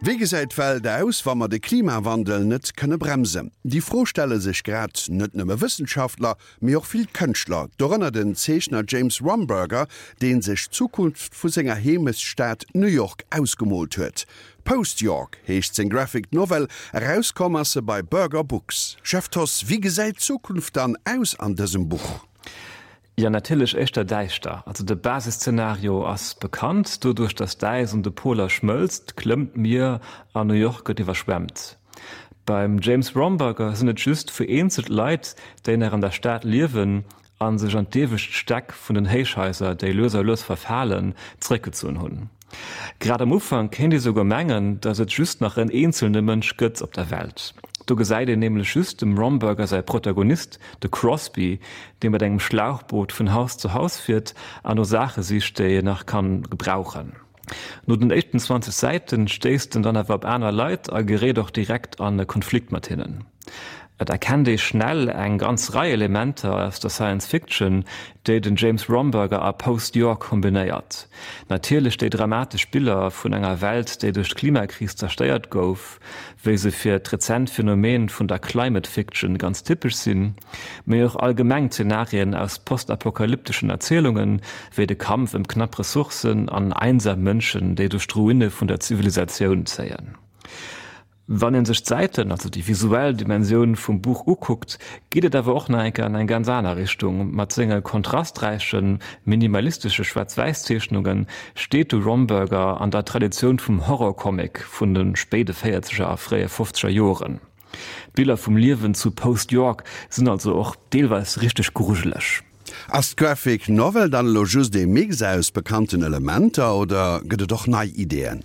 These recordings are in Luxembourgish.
Wéi gesäit d'Welt aus, wa mer de Klimawandel net kënne bremsen? Déi Fro stelle sech grad net nëmme Wëssenschaftler, mee och vill Kënschtler, dorënner den Zeechner James Romberger, dee sech d'Zukunft vu senger Heemechtsstad New York ausgemoolt huet. Post York heescht seng Graphic Novel, erauskomm ass se bei Berger Books. Jeff Thoss, wéi gesäit d'Zukunft dann aus an dësem Buch? Jo, natierlech éischter däischter. Also de Basisszenario ass bekannt, Doduerch datt d'Äis un de Poler schmëlzt, klëmmt d'Mier an New York gëtt iwwerschwemmt. Beim James Romberger sinn et just vereenzelt Leit, déi nach an der Stad liewen a sech an d'iewescht Stäck vun den Héichhaiser, déi lues a lues verfalen, zeréckgezunn hunn. Grad am Ufank kéint ee souguer mengen, datt et just nach en eenzelne Mënsch gëtt op der Welt. Do gesäit een nämlech just dem Romberger säi Protagonist, de Crosby, dee mat engem Schlauchboot vun Haus zu Haus fiert an no Saache sicht, déi en nach kann gebrauchen. No den éischten 20 Säiten stéisst en dann awer op aner Leit a geréit och direkt an e Konflikt mat hinnen. Et erkennt ee schnell eng ganz Rei Elementer aus der Science Fiction, déi den James Romberger a Post York kombinéiert. Natierlech déi dramatesch Biller vun enger Welt, déi duerch d'Klimakris zerstéiert gouf, wéi se fir d'rezent Phänomen vun der Climate Fiction ganz typesch sinn, mee och allgemeng Zenarien aus postapokalypteschen Erzielungen, wéi de Kampf ëm knapp Ressourcen an einsam Mënschen, déi duerch d'Ruine vun der Zivilisatioun zéien. Wann een sech d'Säiten, also déi visuell Dimensioun vum Buch ukuckt, geet et awer och nach eng Kéier an eng ganz aner Richtung. Mat senge kontrasträichen, minimalistesche Schwaarz-Wäiss-Zeechnunge steet de Romberger an der Traditioun vum Horror-Comic vun de spéide véierzeger a fréie fofzeger Joren. D'Biller vum Liewen zu Post York sinn also och deelweis richteg grujeleg. Ass d'Graphic Novel dann elo just ee Mix aus bekannten Elementer oder gëtt et och nei Ideeën?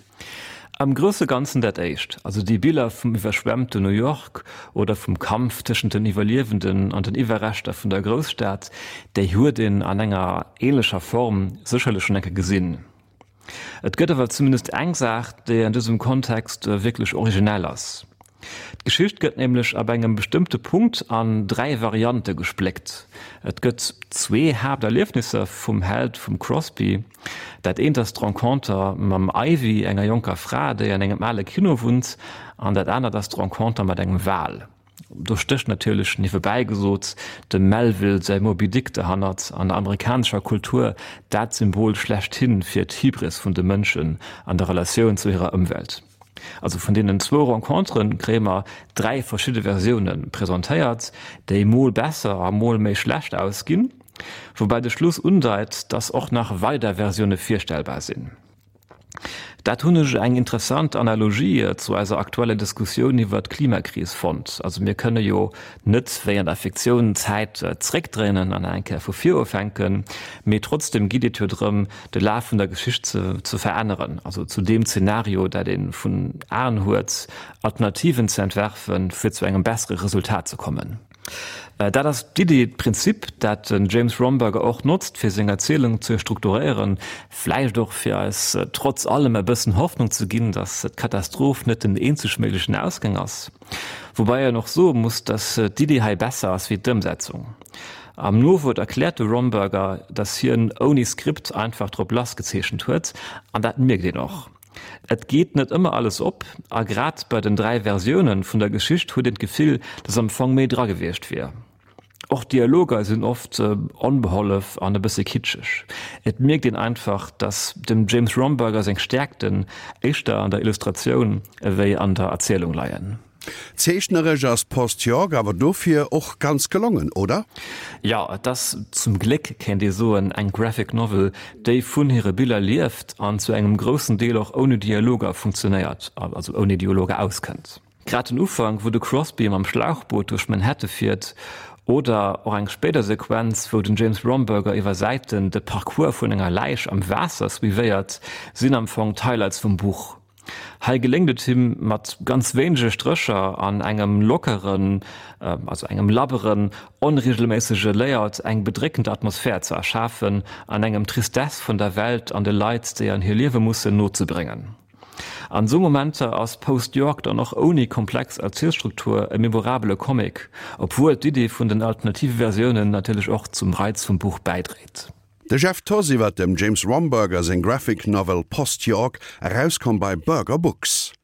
Am grousse Ganzen dat éischt, also déi Biller vum iwwerschwemmten New York oder vum Kampf tëschent den Iwwerliewenden an den Iwwerreschter vun der Grousstad, déi huet een an enger ähnlecher Form sécherlech schonn eng Kéier gesinn. Et gëtt awer zumindest eng Saach, déi an dësem Kontext wierklech originell ass. D'Geschicht gëtt nämlech ab engem bestëmmte Punkt an 3 Variante gespléckt. Et gëtt zwee Haapterliefnisser vum Held, vum Crosby. Dat eent ass d'Renconter mam Ivy, enger jonker Fra, déi an engem ale Kino wunnt, an dat anert ass d'Renconter mat engem Wal. Do stécht natierlech, niewebäi gesot, dem Melville säi Moby Dick derhannert, an der amerikanescher Kultur dat Symbol schlechthin fir d'Hybris vun de Mënschen an der Relatioun zu hirer Ëmwelt. Also vun deenen zwou Renconteren kréie mer 3 verschidde Versioune presentéiert, déi mol besser a mol méi schlecht ausginn, woubäi de Schluss undeit, dass och nach weider Versioune virstellbar sinn. Dat hunn ech eng interessant Analogie zu eiser aktueller Diskussioun iwwert d'Klimakris fonnt. Also mir kënne jo net wéi an der Fiktioun d'Zäit zréckdréinen an eng Kéier vu vir ufänken, mee trotzdem geet et jo drëm, de Laf vun der Geschicht ze ze veränneren, also zu deem Zenario, dat ee vun Aen huet, Alternativen ze entwerfen, fir zu engem bessere Resultat ze kommen. Dat ass d'Iddi, d'Prinzip, dat den James Romberger och notzt, fir seng Erzielung ze strukturéieren, vläicht och fir eis trotz allem e bëssen Hoffnung ze ginn, datt d'Katastroph net den eenzeg méiglechen Ausgang ass. Woubäi een och soe muss, datt d'Iddi hei besser ass wéi d'Ëmsetzung. Am Nowuert erkläert de Romberger, datt hien ouni Skript einfach drop lass gezeechent huet, an dat mierkt een och. Et geet net ëmmer alles op, a grad bei den 3 Versioune vun der Geschicht huet een d'Gefill, datt am Fong méi dra gewiescht wier. Och d'Dialoger sinn oft onbehollef an e bësse kitscheg. Et mierkt een einfach, datt dem James Romberger seng Stäerkten éischter an der Illustratioun ewéi an der Erzielung leien. Zeechneresch ass Post York awer dofir och ganz gelongen, oder? Jo, et ass zum Gléck, kéint ee soen, eng Graphic Novel, déi vun hire Biller lieft an zu engem groussen Deel och ouni Dialoger funktionéiert, also ouni Dialoger auskënnt. Grad den Ufank, wou de Crosby mam Schlauchboot duerch Manhatte fiert, oder och eng spéider Sequenz, wou den James Romberger iwwer Säiten de Parcours vun enger Läich am Waasser suivéiert, sinn am Fong d'Highlights vum Buch. Hei geléngt et him mat ganz wéinege Strécher an engem lockeren, also engem labberen, onregelméissege Layout eng bedréckend Atmosphär ze erschafen an engem d'Tristesse vun der Welt an de Leit, déi an hir liewe mussen, nozebréngen. An esou Momenter ass Post York dann och ouni komplex Erzielstruktur e memorabele Comic, obwuel d'Idee vun den alternative Versiounen natierlech och zum Reiz vum Buch bäidréit. De Jeff Thoss iwwer dem James Romberger seng Graphic Novel Post York, erauskomm bei Berger Books.